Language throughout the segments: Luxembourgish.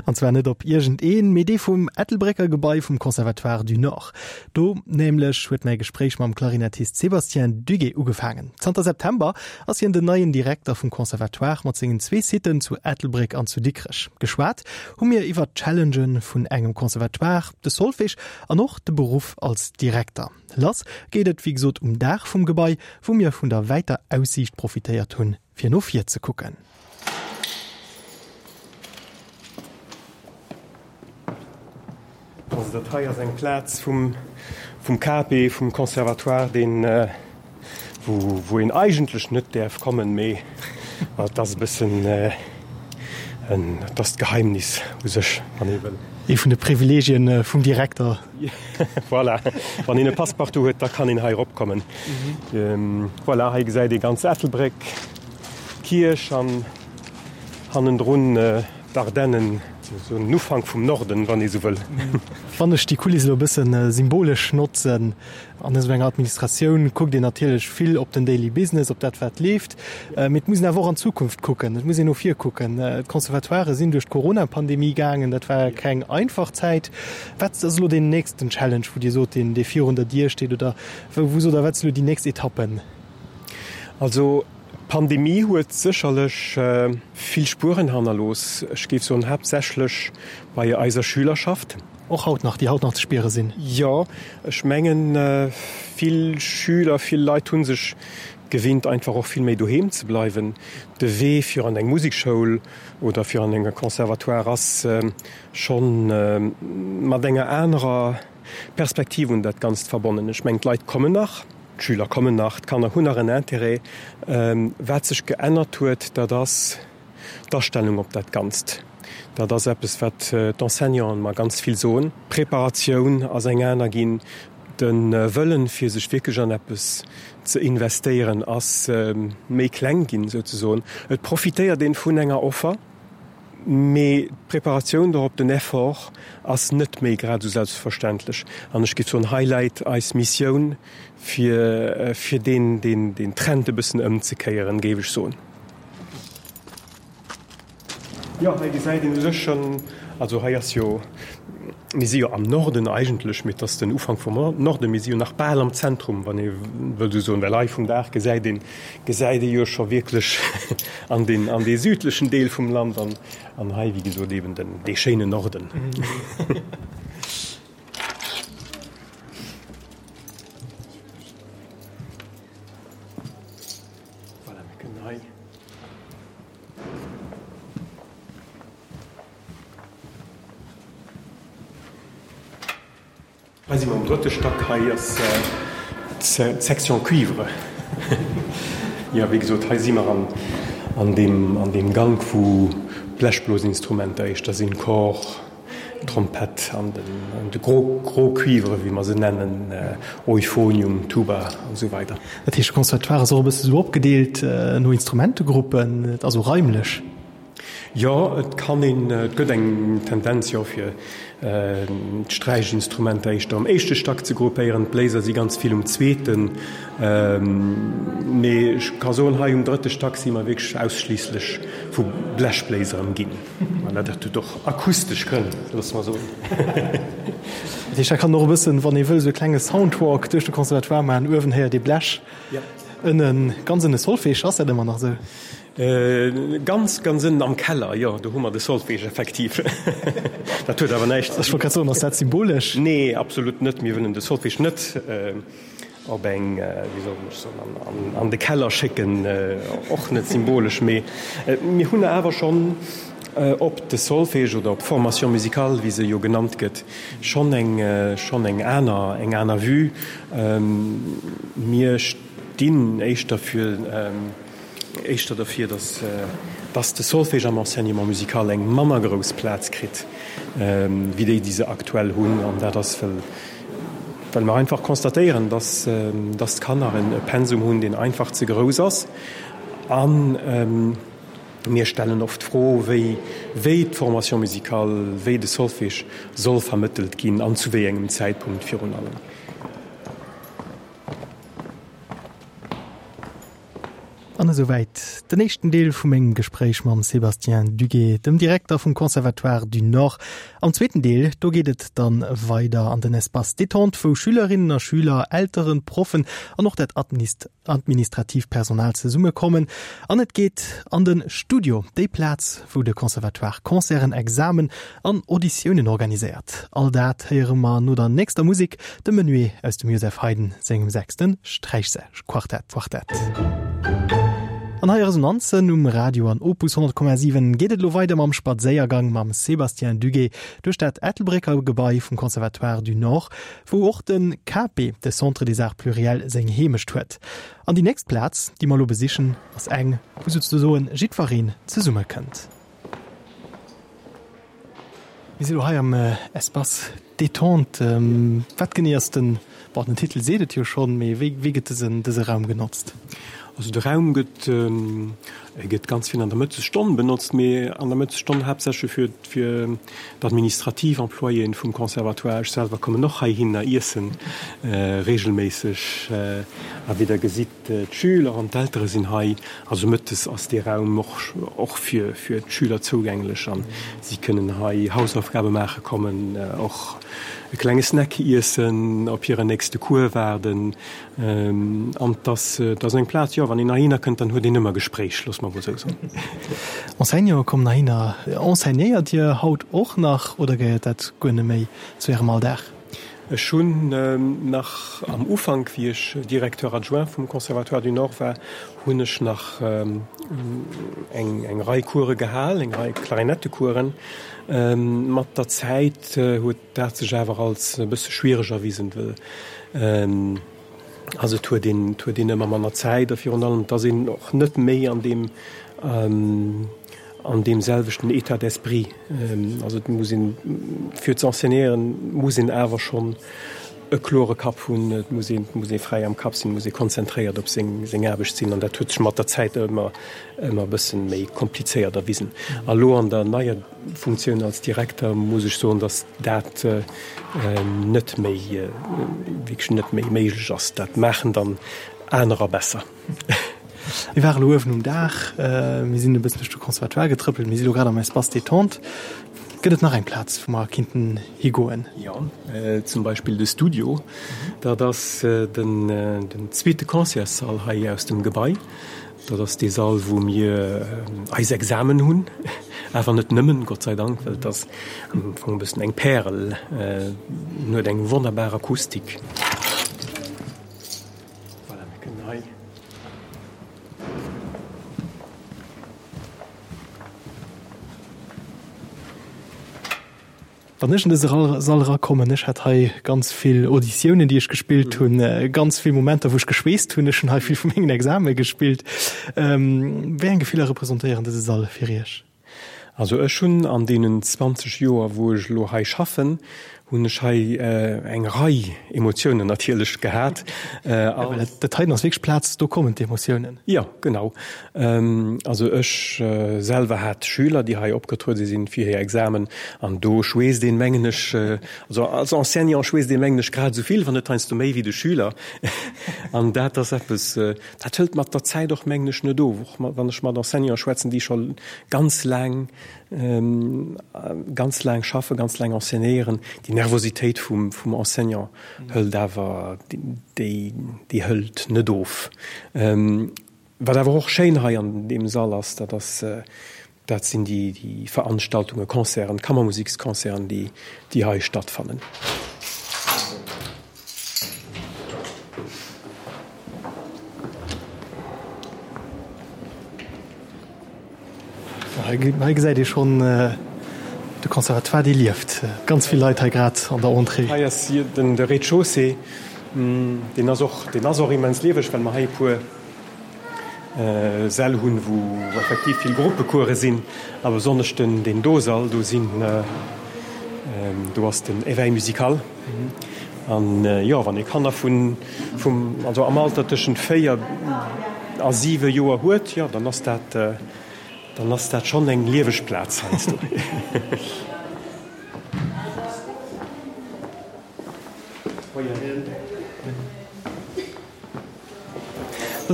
An zwar net op iergendeen, mee dee vum Ettelbrécker Gebai vum Conservatoire du Nord. Do nämlech huet mäi Gespréich mam Klarinettist Sébastien Duguet ugefaangen. Zanter September ass hien den neien Direkter vum Conservatoire mat sengen zwee Sitten zu Ettelbréck an zu Dikrech. Geschwat hu mir iwwert d'Challengen vun engem Conservatoire, de Solfège an och de Beruff als Direkter. Lass geet et wéi gesot um Daach vum Gebai, wou mir vun der wäiter Aussiicht profitéiert hunn, fir no vir ze kucken. Also dat hei ass eng Plaz vum vum KP, vum Conservatoire, deen wou wou een eigentlech net däerf kommen, mee et ass e bëssen en, et ass d'Geheimnis u sech, wann ee wëll. Ee vun de Privileegien vum Direkter. Voilà, wann een e Passepartout huet, da kann een hei eropkommen. Voilà, hei gesäit ee ganz Ettelbréck, d'Kierch an hannendrun D'Ardennen, esou en Ufank vum Norden, wann ee sou wëll. Wann ech déi Kuliss elo e bësse symbolesch notzen, an esou enger Administratioun kuckt een natierlech vill op den Daily Business, op dat wat leeft, mee et muss een awer och an d'Zukunft kucken, et muss een no vir kucken. D'Conservatoiren sinn duerch d'Corona-Pandemie gaangen, dat war keng einfach Zäit. Wat ass elo deen nächsten Challenge, wou Dir sot, deen dee virun der Dier steet oder wou sot Der, wat sinn elo déi nächst Etappen? Also D'Pandemie huet sécherlech vill Spueren hannerlooss, ech géif soen haaptsächlech bei eiser Schülerschaft. Och haut nach, déi haut nach ze spiere sinn? Jo, ech mengen vill Schüler, vill Leit hu sech gewinnt einfach och vill méi doheem ze bleiwen. De Wee fir an eng Musekschoul oder fir an e Conservatoire ass schonn mat enger anerer Perspektiv un dat Ganzt verbonnen. Ech mengen d'Leit kommen nach. D'Schüler kommen nach, d'Kanner hunn nach en Intérêt. Wat sech geännert huet, dat ass d'Astellung op dat Ganzt. Dat ass eppes, wat d'Enseignanten mer ganz vill soen. D'Preparatioun ass eng aner ginn. De Wëllen, fir sech wierklech an eppes ze investéieren, ass méi kleng ginn, souzesoen. Et profitéiert een vun enger Offer. Mee d'Preparatioun dorop, den Effort ass net méi grad esou selbstverständlech. An ech géif soen, hei läit eis Missioun, fir, fir deen, deen, deen Trend e bëssen ëmzekéieren, géif ech soen. Jo, hei gesäit een u sech schonn, also hei ass jo, mir si jo am Norden eigentlech, mee et ass den Ufank vum Norden, mir si jo nach bal am Zentrum, wann ee wëllt esou soen, well hei vum Daach gesäit een, gesäit ee jo scho wierklech an deen, an dee südlechen Deel vum Land an, an hei, wéi gesot, eben den, dee schéinen Norden. Voilà, mir kënnen hei. Hei si mer am drëtte Stack. Hei ass d'Section Cuivre. Jo, wéi gesot, hei si mer an deem, an deem Gank, wou d'Blechblosinstrumenter éischter sinn, Cor, Trompett an den, de gros, gros Cuivre, wéi mer se nennen, Euphonium, Tuba an esou weider. Dat heescht, de Conservatoire ass och e bësse sou opgedeelt no Instrumentegruppen, also raimlech? Jo, et kann een, et gëtt eng Tendenz, jo, fir d'Sträichinstrumenter éischter um éischte Stack ze gruppéieren. D'Bléiser si ganz vill um zweeten. Mee ech ka soen, hei um drëtte Stack si mer wierklech ausschliisslech vu Blechbléiser ëmginn. An dat huet och akustesch Grënn, loosse mer soen. Dat heescht, da kann een och e bëssen, wann ee wëll, esou e klenge Soundwalk duerch de Conservatoire maachen. Uewen héiert ee Blech, ënnen, ganz ënne Solfège. Ass dat ëmmer nach esou? Ganz, ganz ënnen am Keller, jo, do hu mer de Solfège effektiv. Dat huet awer näischt. Ech wollt grad soen, ass dat symbolesch? Nee, absolut net. Mir wëllen de Solfège net op eng, wéi soll ech soen, an de Keller schécken, och net symbolesch. Mee mir hunn awer schonn op de Solfège oder op d'Formation musicale, wéi se jo genannt gëtt, schonn eng, schonn eng aner, eng aner Vue. Mir stinn éischter fir. Éischter derfir, dass dass de Solfège am Enseignement musical eng manner grouss Plaz kritt wéi déi, déi se aktuell hunn. An dat ass, well well mer einfach constatéieren, dass dass d'Kanner e Pensum hunn, deen einfach ze grouss ass. A mir stellen oft d'Fro, wéi wéi d'Formation musicale, wéi de Solfège soll vermëttelt ginn an zu wéi engem Zäitpunkt virun allem. An esouwäit den éischten Deel vu mengem Gespréich mam Sébastien Duguet, dem Direkter vum Conservatoire du Nord. Am zweeten Deel, do geet et dann weider an den Espace détente, wou Schülerinnen a Schüler, Elteren, Proffen an och dat administratiivt Personal zesummekommen. An et geet an de Studio, déi Plaz, wou de Conservatoire Concerten, Examen an Auditiounen organiséiert. All dat héiere mer no der nächster Musek, dem Menuet aus dem Joseph Haydn sengem sechste Sträichquartett. An hei Resonanzen um Radio an Opus 100,7 geet et elo weider mam Spadséiergang mam Sébastien Duguet duerch dat Ettelbrécker Gebai vum Conservatoire du Nord, wou och de CAPE, de Centre des Arts Pluriels, seng Heemecht huet. An déi nächst Plaz, déi mer elo besichen, ass eng, wou souzesoen jiddwereen zesummekënnt. Mir si lo hei am Espace Détente. Wat genee ass den, bon, den Titel seet et jo schonn, mee wéi, wéi gëtt dësen, dëse Raum genotzt? Also de Raum gëtt, e gëtt ganz vill an der Mëttesstonn benotzt, mee an der Mëttesstonn haaptsächlech fir, fir d'administrativ Employéen vum Conservatoire. Ech selwer kommen och heihinner iessen reegelméisseg. A wéi Der gesitt, D'Schüler an d'Eltere sinn hei. Also mëttes ass dee Raum och fir d'Schüler zougänglech an si kënnen hei Hausaufgabe maache kommen, och e klenge Snack iessen, op hiren nächste Cours waarden. An et ass eng Plaz, jo, wann een heihinner kënnt, dann huet een ëmmer Gespréich, loosse mer emol esou soen. Enseignanten kommen heihinner. Enseignéiert Dir haut och nach oder gehéiert dat guer net méi zu Ärem Alldag? Ech hunn nach am Ufank, wéi ech Directeur adjoint vum Conservatoire du Nord war, hunn ech nach eng Rei Course gehal, eng Rei Klarinettecoursen. Mat der Zäit huet dat sech awer als e bësse schwiereg erwisen, well also et huet een, et huet een ëmmer manner Zäit a virun allem et ass een och net méi an deem, an deem selwechten État d'esprit. Also et muss een, fir ze enseignéieren, muss een awer schonn e klore Kapp hunn, et muss een, et muss ee fräi am Kapp sinn, et muss ee konzentréiert op seng, seng Aarbecht sinn an dat huet sech mat der Zäit ëmmer, ëmmer e bësse méi komplizéiert erwisen. A lo an der neier Funktioun als Direkter muss ech soen, datt dat net méi, wierklech net méi méiglech ass. Dat maachen dann anerer besser. Mir ware lo uewen um Daach, mir sinn e bëssen duerch de Conservatoire getrëppelt, mir si lo grad am Espace détente. Gëtt et nach eng Plaz, wou mer kinnten higoen? Jo, zum Beispill de Studio. Dat ass den zweete Concertssall hei aus dem Gebai. Dat ass dee Sall, wou mir eis Examen hunn, awer net nëmmen, Gott sei Dank, well et ass am Fong e bëssen eng Pärel. En huet eng wonnerbar Akustik. Voilà, mir kënnen hei. Wann ech an dëse Sall erakommen, ech hat hei ganz vill Auditiounen, déi ech gespillt hunn, ganz vill Momenter, wou ech geschweesst hunn. Ech hunn hei vill vu mengen Exame gespillt. Wéi eng Gefiller representéieren dëse Sall fir Iech? Also ech hunn an deenen 20 Joer, wou ech elo hei schaffen, hunn ech hei eng Rei Emotiounen natierlech gehat. Well dat heiten ass wierklech d'Plaz, do kommen d'Emotiounen. Jo, genau. Also ech selwer hat Schüler, déi hei opgetruede sinn fir hir Examen an do schweesst een, mengen ech, also als Enseignant schweesst een, mengen ech, grad esou vill, wann net heiansdo méi wéi de Schüler. An dat ass eppes, Dat hëlt mat der Zäit och, mengen ech, net of. Och wann ech mat Enseignanten schwätzen, déi scho ganz laang, ganz laang schaffen, ganz laang enseignéieren, déi Nervositéit vum, vum Enseignant hëlt awer, déi, déi hëlt net of. Wat awer och schéin hei an deem Sall ass, dat ass, Dat sinn déi Veranstaltungen, Concerten, Kammermusiksconcerten, déi hei stattfannen. Hei gesäit ee schonn de Conservatoire, dee lieft. Ganz vill Leit hei grad an der Entrée. Hei ass de Rez-de-chaussée. Deen ass och, deen ass och immens lieweg, well mer hei e puer Säll hunn, wou effektiv vill Gruppecourse sinn, a besonnesch den deen do Sall, do sinn, do ass den Éveil musical. An jo, wann ee Kanner vun, vum, also am Alter tëschent 4 a 7 Joer huet, jo, dann ass dat, dann ass dat schonn eng lieweg Plaz heiansdo.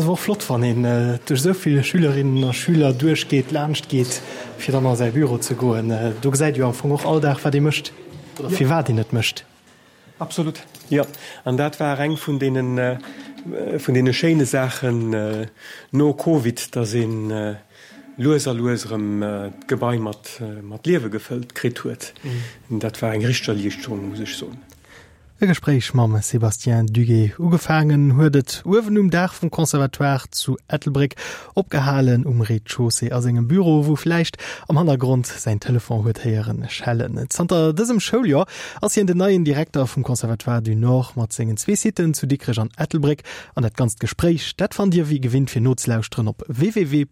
Dat ass awer och flott, wann een duerch esou vill Schülerinnen a Schüler duerchgeet, laanscht geet, fir dann a säi Büro ze goen. Do gesäit ee jo am Fong och all Dag, wat ee mécht oder firwat een et mécht. Absolut, jo. An dat war eng vun deene, vun deene schéine Saachen no Covid, dass ee lues a lues erëm d'Gebai mat, mat Liewe gefëllt kritt huet. Dat war eng richteg Erliichterung, muss ech soen. E Gespréich mam Sébastien Duguet. Ugefaangen huet et uewen um Daach vum Conservatoire zu Ettelbréck, opgehalen um Rez-de-chaussée a sengem Büro, wou vläicht am Hannergrond säin Telefon huet héieren schellen. Zanter dësem Schouljoer ass hien den neien Direkter vum Conservatoire du Nord mat sengen zwee Sitten zu Dikrech an Ettelbréck. An dat ganzt Gespréich, dat fannt Dir wéi gewinnt fir nozelauschteren op www.opus.radio.